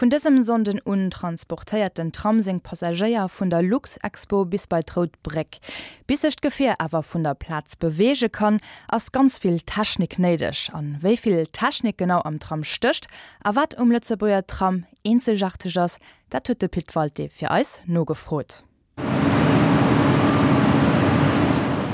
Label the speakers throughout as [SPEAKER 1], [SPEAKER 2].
[SPEAKER 1] Vun dësem Sonnden un transportéiert den Tram seng Passagéier vun der Luxexpo bis bei d'Rout Bréck. Bis sech d'Gefier awer vun der Plaz beweege kann, ass ganz vill Technik néideg. An wéi vill Technik genau am Tram stécht a wat um Lëtzebuerger Tram eenzegaarteg ass, dat huet de Pit Walté fir eis nogefrot.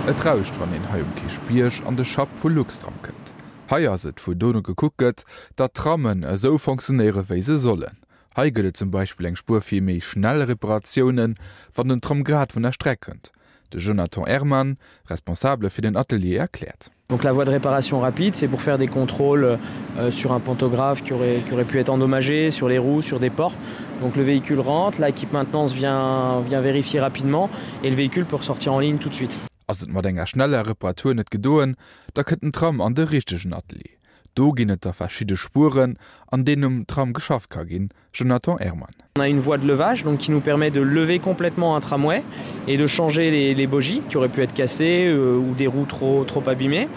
[SPEAKER 2] Et rauscht, wann een hei um Kierchbierg an de Schapp vu Luxtram kënnt. Hei ass et, wou dono gekuckt gëtt, datt d'Trammen esou fonctionnéiere wéi se sollen. Hei gëtt et zum Beispill eng Spuer fir méi schnell Reparatiounen, wann den Tram grad vun der Streck kënnt. De Jonathan Herman, Responsabele fir den Atelier, erkläert.
[SPEAKER 3] Donc la voie de réparation rapide, c'est pour faire des contrôles euh, sur un pantographe qui aurait, qui aurait pu être endommagé, sur les roues, sur des portes. Donc le véhicule rentre, l'équipe maintenance vient, vient vérifier rapidement et le véhicule peut ressortir en ligne tout de suite.
[SPEAKER 2] Ass et mat enger schneller Reparatur net gedoen, da kënnt den Tram an de richtegen Atelier. Do ginn et da verschidde Spueren, an deenen um Tram geschafft ka ginn, Jonathan Herman.
[SPEAKER 3] On a une voie de levage donc qui nous permet de lever complètement un tramway et de changer les, les bogies qui auraient pu être cassées euh, ou des roues trop, trop abîmées.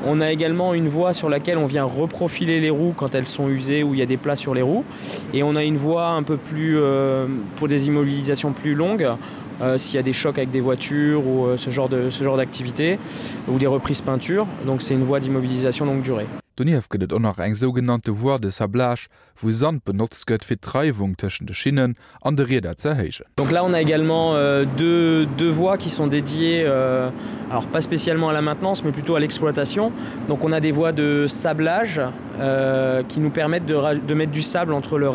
[SPEAKER 3] On a également une voie sur laquelle on vient reprofiler les roues quand elles sont usées ou il y a des plats sur les roues. Et on a une voie un peu plus euh, pour des immobilisations plus longues euh, s'il y a des chocs avec des voitures ou euh, ce genre de ce genre d'activité ou des reprises peinture. Donc c'est une voie d'immobilisation longue durée.
[SPEAKER 2] Donieft gëtt et och nach eng sougenannte Voie de sablage, wou Sand benotzt gëtt fir d'Reiwung tëschent de Schinnen an de Rieder ze erhéijen.
[SPEAKER 3] Donc là on a également euh, deux, deux voies qui sont dédiées euh, alors pas spécialement à la maintenance mais plutôt à l'exploitation. Donc on a des voies de sablage euh, qui nous permettent de, de mettre du sable entre le,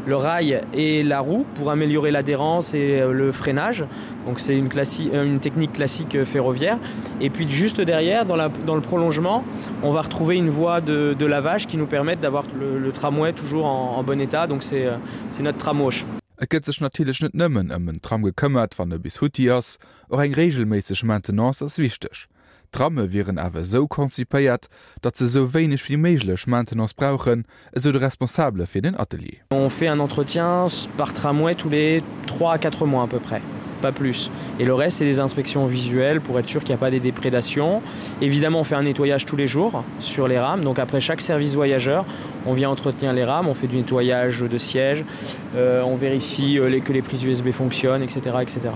[SPEAKER 3] le rail et la roue pour améliorer l'adhérence et euh, le freinage. Donc c'est une, euh, une technique classique euh, ferroviaire. Et puis juste derrière, dans, la, dans le prolongement, on va retrouver une voie de, de lavage qui nous permet d'avoir le, le tramway toujours en, en bon état. Donc c'est notre tramwash.
[SPEAKER 2] Et gëtt sech natierlech net nëmmen ëm en Tram gekëmmert, wann e bis futti ass. Och eng reegelméisseg Maintenance ass wichteg. D'Tramme wieren awer esou konzipéiert, datt se esou wéineg wéi méiglech Maintenance brauchen, esou de Responsabele fir den Atelier.
[SPEAKER 3] On fait un entretien par tramway tous les 3 à 4 mois à peu près, pas plus. Et le reste c'est des inspections visuelles pour être sûr qu'il n'y a pas des déprédations. Évidemment on fait un nettoyage tous les jours sur les rames, donc après chaque service voyageur, on vient entretenir les rames, on fait du nettoyage de sièges, euh, on vérifie euh, que les prises USB fonctionnent, etc. etc.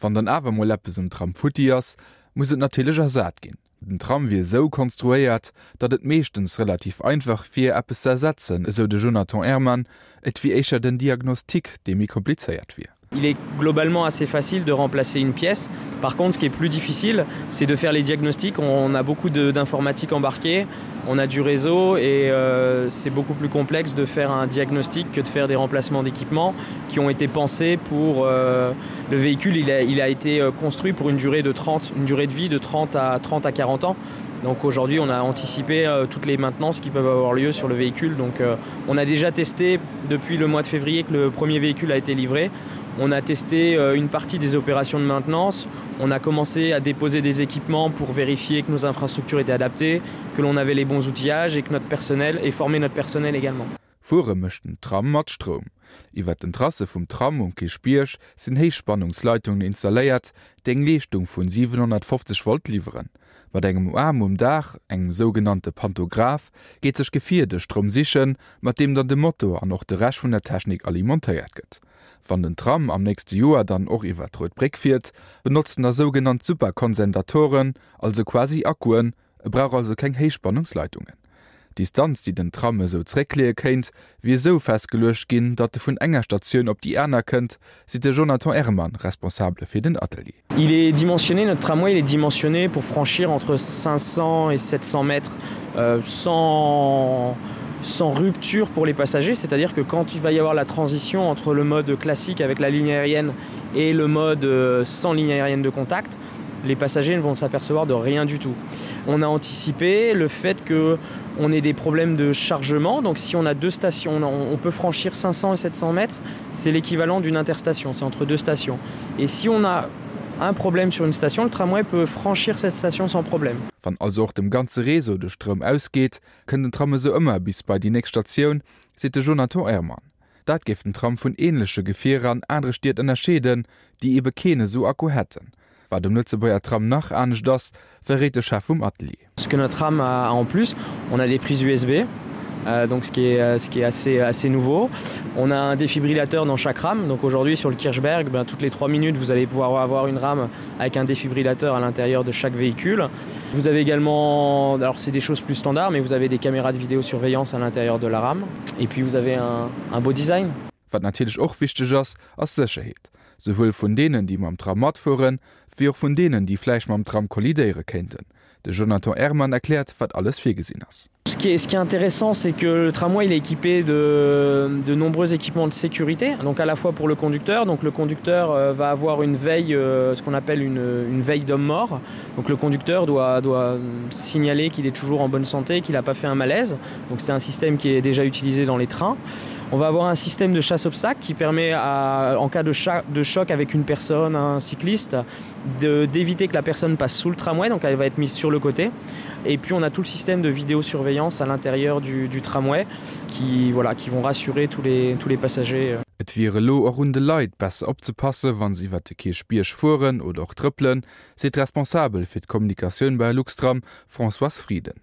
[SPEAKER 2] Wann dann awer mol eppes um Tram futti ass, muss et natierlech ersat ginn. Den Tram wier esou konstruéiert, datt et meeschtens relativ einfach wier, eppes ze ersetzen, esou de Jonathan Herman. Et wier éischter den Diagnostic, dee méi komplizéiert wier.
[SPEAKER 3] Il est globalement assez facile de remplacer une pièce. Par contre, ce qui est plus difficile, c'est de faire les diagnostics. On a beaucoup d'informatique embarquée, on a du réseau et euh, c'est beaucoup plus complexe de faire un diagnostic que de faire des remplacements d'équipements qui ont été pensés pour euh, le véhicule. Il a, il a été euh, construit pour une durée de 30, une durée de vie de 30 à 30 à 40 ans. Donc aujourd'hui, on a anticipé euh, toutes les maintenances qui peuvent avoir lieu sur le véhicule. Donc euh, on a déjà testé depuis le mois de février que le premier véhicule a été livré. On a testé euh, une partie des opérations de maintenance. On a commencé à déposer des équipements pour vérifier que nos infrastructures étaient adaptées, que l'on avait les bons outillages et que notre personnel et former notre personnel également.
[SPEAKER 2] Fuere mécht den Tram mat Stroum. Iwwer den Trasse vum Tram um Kierchbierg sinn Héichspannungsleitungen installéiert, déi eng Leeschtung vun 750 Volt liwweren. Mat engem Aarm um Daach, engem sougenannte Pantograph, geet sech d'Gefier de Stroum sichen, mat deem dann de Motor an och de Rescht vun der Technik alimentéiert gëtt. Wann den Tram am nächste Joer dann och iwwer d'Rout Bréck fiert, benotzt en da sougenannt Superkonsendatoren, also quasi Akkuen, E brauch also keng Héichspannungsleitungen. D'Distanz, déi den Tram esou zréckleeë kéint, wier esou festgeluecht ginn, datt e vun enger Statioun op déi aner kënnt, seet de Jonathan Herman, Responsabele fir den Atelier.
[SPEAKER 3] Il est dimensionné, notre tramway il est dimensionné pour franchir entre 500 et 700 mètres euh, sans, sans rupture pour les passagers, c'est-à-dire que quand il va y avoir la transition entre le mode classique avec la ligne aérienne et le mode euh, sans ligne aérienne de contact, les passagers ne vont s'apercevoir de rien du tout. On a anticipé le fait que on ait des problèmes de chargement donc si on a deux stations on peut franchir 500 et 700 mètres c'est l'équivalent d'une interstation c'est entre deux stations et si on a un problème sur une station le tramway peut franchir cette station sans problème.
[SPEAKER 2] Wann also och dem ganze Réseau de Stroum ausgeet, kënnt den Tram esou ëmmer bis bei déi nächst Statioun, seet de Jonathan Herman. Dat géif den Tram vun änleche Gefierer an anere Stied ënnerscheeden, déi ebe keen esou Akku hätten. Wat um Lëtzebuerger Tram nach anescht ass, verréit de Chef vum Atelier.
[SPEAKER 3] Ce que notre tram a en plus, on a des prises USB. Euh, donc ce qui est, euh, ce qui est assez, assez nouveau. On a un défibrillateur dans chaque rame. Donc aujourd'hui sur le Kirchberg, ben, toutes les trois minutes, vous allez pouvoir avoir une rame avec un défibrillateur à l'intérieur de chaque véhicule. Vous avez également, alors c'est des choses plus standards, mais vous avez des caméras de vidéosurveillance à l'intérieur de la rame. Et puis vous avez un, un beau design.
[SPEAKER 2] Wat natierlech och wichteg ass, ass Sécherheet, souwuel vun deenen, déi mam Tram matfueren, wéi och vun deenen, déi vläicht mam Tram kollidéiere kéinten. De Jonathan Herman erkläert, wat alles virgesinn ass.
[SPEAKER 3] Ce qui est, ce qui est intéressant, c'est que le tramway il est équipé de, de nombreux équipements de sécurité, donc à la fois pour le conducteur. Donc le conducteur euh, va avoir une veille, euh, ce qu'on appelle une, une veille d'homme mort. Donc le conducteur doit, doit signaler qu'il est toujours en bonne santé, qu'il n'a pas fait un malaise. Donc c'est un système qui est déjà utilisé dans les trains. On va avoir un système de chasse obstacle qui permet à, en cas de, de choc avec une personne, un cycliste, d'éviter que la personne passe sous le tramway, donc elle va être mise sur le côté. Et puis on a tout le système de vidéosurveillance à l'intérieur du, du tramway qui, voilà, qui vont rassurer tous les, tous les passagers.
[SPEAKER 2] Et wier elo och un de Leit, besser opzepassen, wa se iwwer de Kierchbierg fueren oder och trëppelen, seet d'Responsabel fir d'Kommunikatioun bei Luxtram, Françoise Frieden.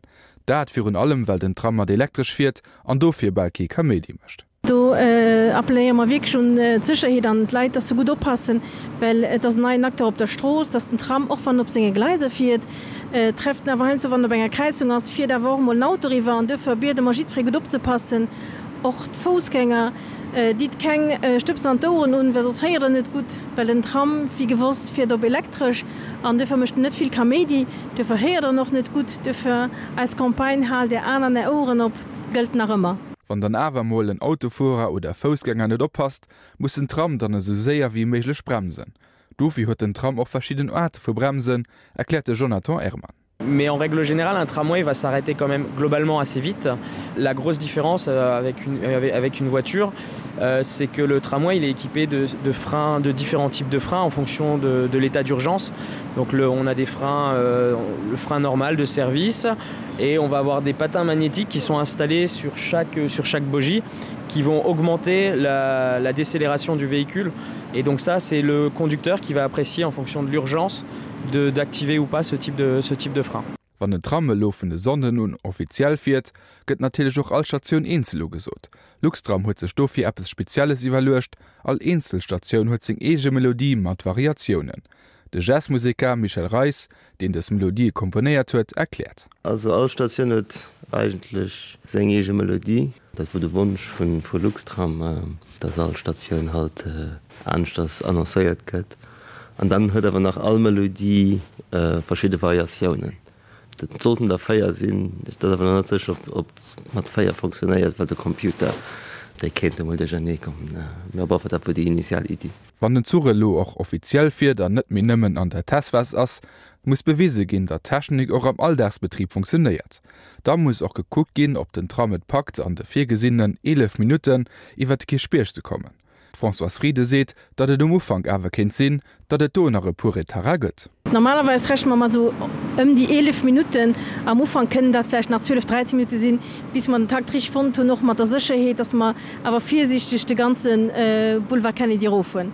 [SPEAKER 2] Dat virun allem, well den Tram mat Elektresch fiert an dofir bal kee Kaméidi mécht.
[SPEAKER 4] Do appelléiere mer wierklech un d'Sécherheet an d'Leit, dass se gutt oppassen, well et ass en neien Acteur op der Strooss, dass den Tram, och wann en op senge Gleiser fiert, trefft en awer heiansdo, wann en op enger Kräizung ass, fiert awer och emol en Auto eriwwer. An duerfir biede mer jiddweree gutt opzepassen, och d'Foussgänger. Ditt keng Stëbsen an d'Oueren un, well soss héiert der net gutt, well den Tram, wéi gewosst, fiert op Elektresch an duerfir mécht en net vill Kaméidi, duerfir héiert der en och net gutt. Duerfir eis Campagne Haalt är Aen an är Oueren op gëllt nach ëmmer.
[SPEAKER 2] Wann dann awer mol en Autofuerer oder Foussgänger net oppasst, muss den Tram dann esou séier wéi méiglech bremsen. Dofir huet den Tram och verschidden Aarte vu Bremsen, erkläert de Jonathan Herman.
[SPEAKER 3] Mais en règle générale, un tramway va s'arrêter quand même globalement assez vite. La grosse différence euh, avec une, avec, avec une voiture, euh, c'est que le tramway il est équipé de, de freins de différents types de freins en fonction de, de l'état d'urgence. Donc le, on a des freins euh, le frein normal de service et on va avoir des patins magnétiques qui sont installés sur chaque, sur chaque bogie qui vont augmenter la, la décélération du véhicule. Et donc ça c'est le conducteur qui va apprécier en fonction de l'urgence d'activer ou pas ce type de, ce type de frein.
[SPEAKER 2] Wann den Tram elo vun e Sonnden un offiziell fiert, gëtt natierlech och all Statioun eenzel ugesot. Luxtram huet sech dofir eppes Spezielles iwwerluecht, all eenzel Statioun huet seng eege Melodie mat Variatiounen. De Jazzmuseker Michel Reis, deen dës Melodië komponéiert huet, erkläert.
[SPEAKER 5] Also all Statioun huet eigentlech seng eege Melodie. Dat wor de Wonsch vu Luxtram, dass all Statioun halt aneschters annoncéiert gëtt. An dann huet awer nach all Melodie verschidde Variatiounen. Dat sollten der 4 sinn. Et ass awer nach net sécher, ob et mat 4 fonctionnéiert, well de Computer, dee kéint emol duerchernee kommen. Mee op alle Fall, dat wor déi initial Iddi.
[SPEAKER 2] Wann den Zuch elo och offiziell fiert an net méi nëmmen an der Testphas ass, muss bewise ginn, datt d'Technik och am Alldagsbetrib funktionéiert. Da muss och gekuckt ginn, ob den Tram et packt, an de virgesinnenen 11 Minutten iwwer de Kierchbierg ze kommen. D'Françoise Frieden seet, datt et um Ufank awer kéint sinn, datt et do nach e puer Retarder gëtt.
[SPEAKER 4] Normalerweis rechne mer mat esou ëm déi 11 Minutten. Am Ufank kënnen dat vläicht nach 12, 13 Minutte sinn, bis mer den Takt richteg fonnt hunn, och mat der Sécherheet, datt mer awer virsiichteg de ganze Boulevard Kennedy eroffueren.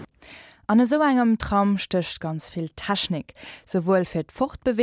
[SPEAKER 1] An esou engem Tram stécht ganz vill Technik, souwuel fir d'Fortbeweegung.